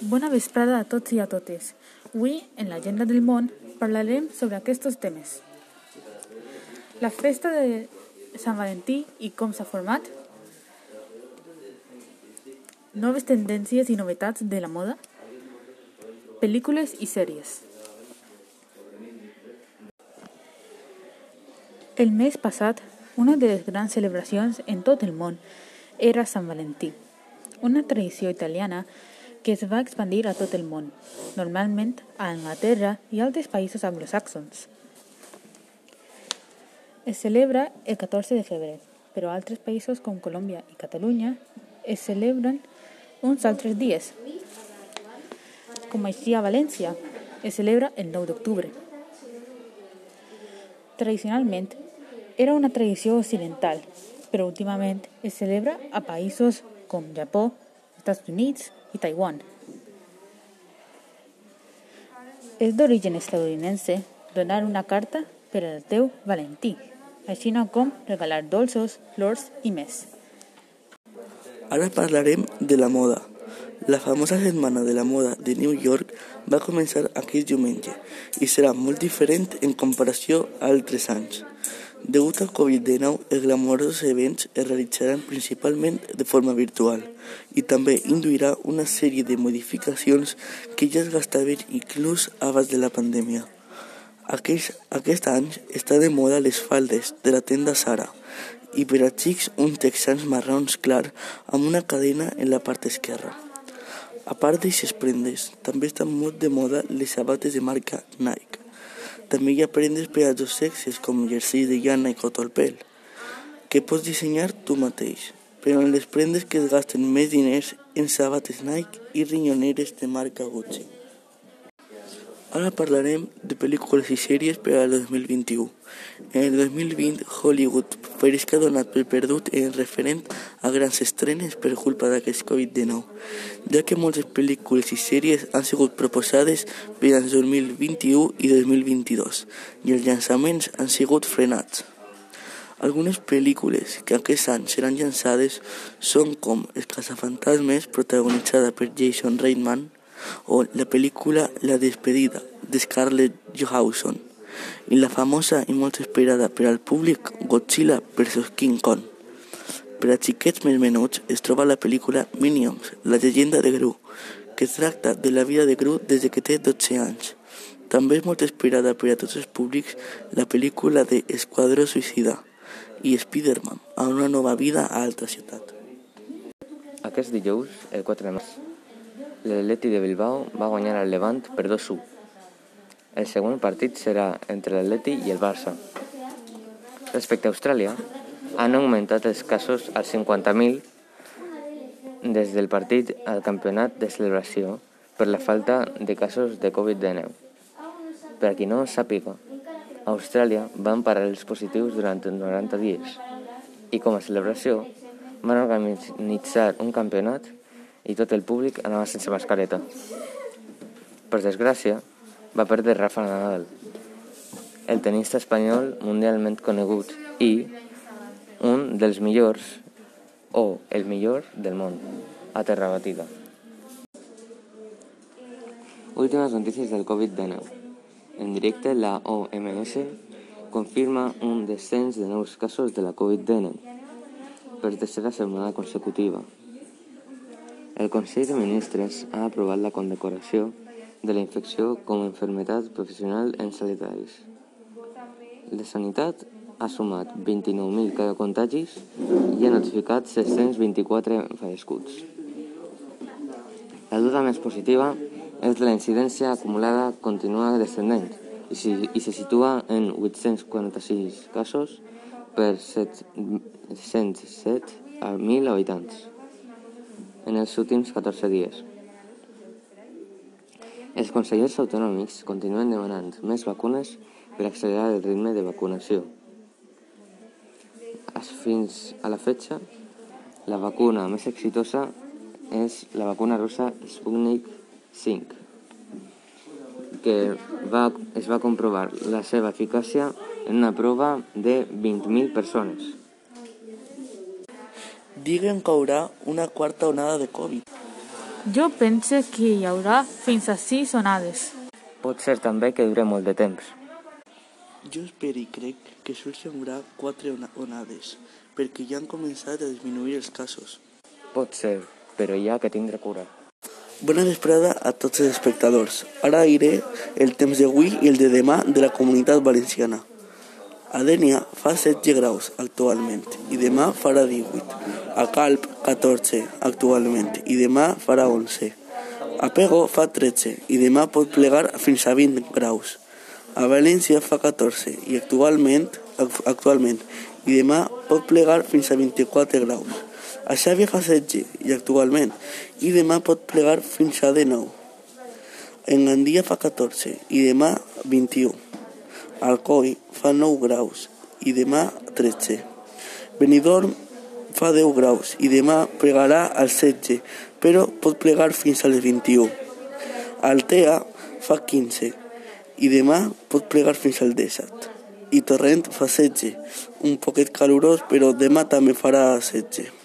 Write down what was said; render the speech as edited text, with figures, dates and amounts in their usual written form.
Bona vesprada a tots i a totes. Avui, en l'Agenda del Món, parlarem sobre aquests temes. La festa de Sant Valentí i com s'ha format, noves tendències i novetats de la moda, pel·lícules i sèries. El mes passat, una de les grans celebracions en tot el món era Sant Valentí, una tradició italiana que es va expandir a tot el món, normalment a Anglaterra i altres països anglosaxons. Es celebra el 14 de febrer, però a altres països com Colòmbia i Catalunya es celebren uns altres dies. Com així a València, es celebra el 9 d'octubre. Tradicionalment, era una tradició occidental, però últimament es celebra a països com Japó, Estats Units i Taiwan. És d'origen estadounidense donar una carta per al teu Valentí, així com regalar dolços, flors i més. Ara parlarem de la moda. La famosa setmana de la moda de New York va començar aquest diumenge i serà molt diferent en comparació a altres anys. Degut al Covid-19, els glamorosos events es realitzaran principalment de forma virtual i també induirà una sèrie de modificacions que ja es gastaven inclús abans de la pandèmia. Aquest any està de moda les faldes de la tenda Zara i per a xics uns texans marrons clar amb una cadena en la part esquerra. A part d'aixes prendes, també estan molt de moda les sabates de marca Nike. També hi ha prendes per als dos sexes com jerseis de llana i cotó al pèl, que pots dissenyar tu mateix, però en les prendes que es gasten més diners en sabates Nike i rinyoneres de marca Gucci. Ara parlarem de pel·lícules i sèries per al 2021. En el 2020, Hollywood pareix que ha donat per perdut en referent a grans estrenes per culpa d'aquest Covid-19, ja que moltes pel·lícules i sèries han sigut proposades per als 2021 i 2022 i els llançaments han sigut frenats. Algunes pel·lícules que aquest any seran llançades són com Els caçafantasmes, protagonitzada per Jason Reitman, o la pel·lícula La despedida, de Scarlett Johansson, i la famosa i molt esperada per al públic Godzilla vs King Kong. Per a xiquets més menuts es troba la pel·lícula Minions, la llegenda de Gru, que tracta de la vida de Gru des que té 12 anys. També és molt esperada per a tots els públics la pel·lícula de Esquadró Suïcida i Spider-Man, a una nova vida a altra ciutat. Aquest dijous, el 4 de març, l'Atleti de Bilbao va guanyar al Levant per 2-1. El següent partit serà entre l'Atleti i el Barça. Respecte a Austràlia, han augmentat els casos als 50.000 des del partit al campionat de celebració per la falta de casos de Covid-19. Per a qui no sàpiga, a Austràlia van parar els positius durant 90 dies i com a celebració van organitzar un campionat i tot el públic anava sense mascareta. Per desgràcia, va perdre Rafa Nadal, el tenista espanyol mundialment conegut i un dels millors o el millor del món, a terra batida. Últimes notícies del Covid-19. En directe, la OMS confirma un descens de nous casos de la Covid-19 per tercera setmana consecutiva. El Consell de Ministres ha aprovat la condecoració de la infecció com a malaltia professional en sanitaris. La Sanitat ha sumat 29.000 contagis i ha notificat 624 fallecituds. La dada més positiva és que la incidència acumulada continua descendent i se situa en 846 casos per 107 a 1.000 habitants en els últims 14 dies. Els consellers autonòmics continuen demanant més vacunes per accelerar el ritme de vacunació. Fins a la fecha, la vacuna més exitosa és la vacuna russa Sputnik V, que es va comprovar la seva eficàcia en una prova de 20.000 persones. Diuen que hi haurà una quarta onada de Covid. Jo pense que hi haurà fins a 6 onades. Pot ser també que dure molt de temps. Jo espero i crec que sols hi haurà 4 onades, perquè ja han començat a disminuir els casos. Pot ser, però hi ha que tindre cura. Bona vesprada a tots els espectadors. Ara diré el temps d'avui i el de demà de la Comunitat Valenciana. A Dénia fa 16 graus actualment i demà farà 18. A Calp 14 actualment i demà farà 11. A Pego fa 13 i demà pot plegar fins a 20 graus. A València fa 14 i actualment i demà pot plegar fins a 24 graus. A Xàbia fa 16 i actualment i demà pot plegar fins a 19. En Gandia fa 14 i demà 21. Alcoi fa 9 graus i demà 13. Benidorm fa 10 graus i demà plegarà als 16, però pot plegar fins als 21. Altea fa 15 i demà pot plegar fins al 17. I Torrent fa 16, un poquet calorós, però demà també farà 16.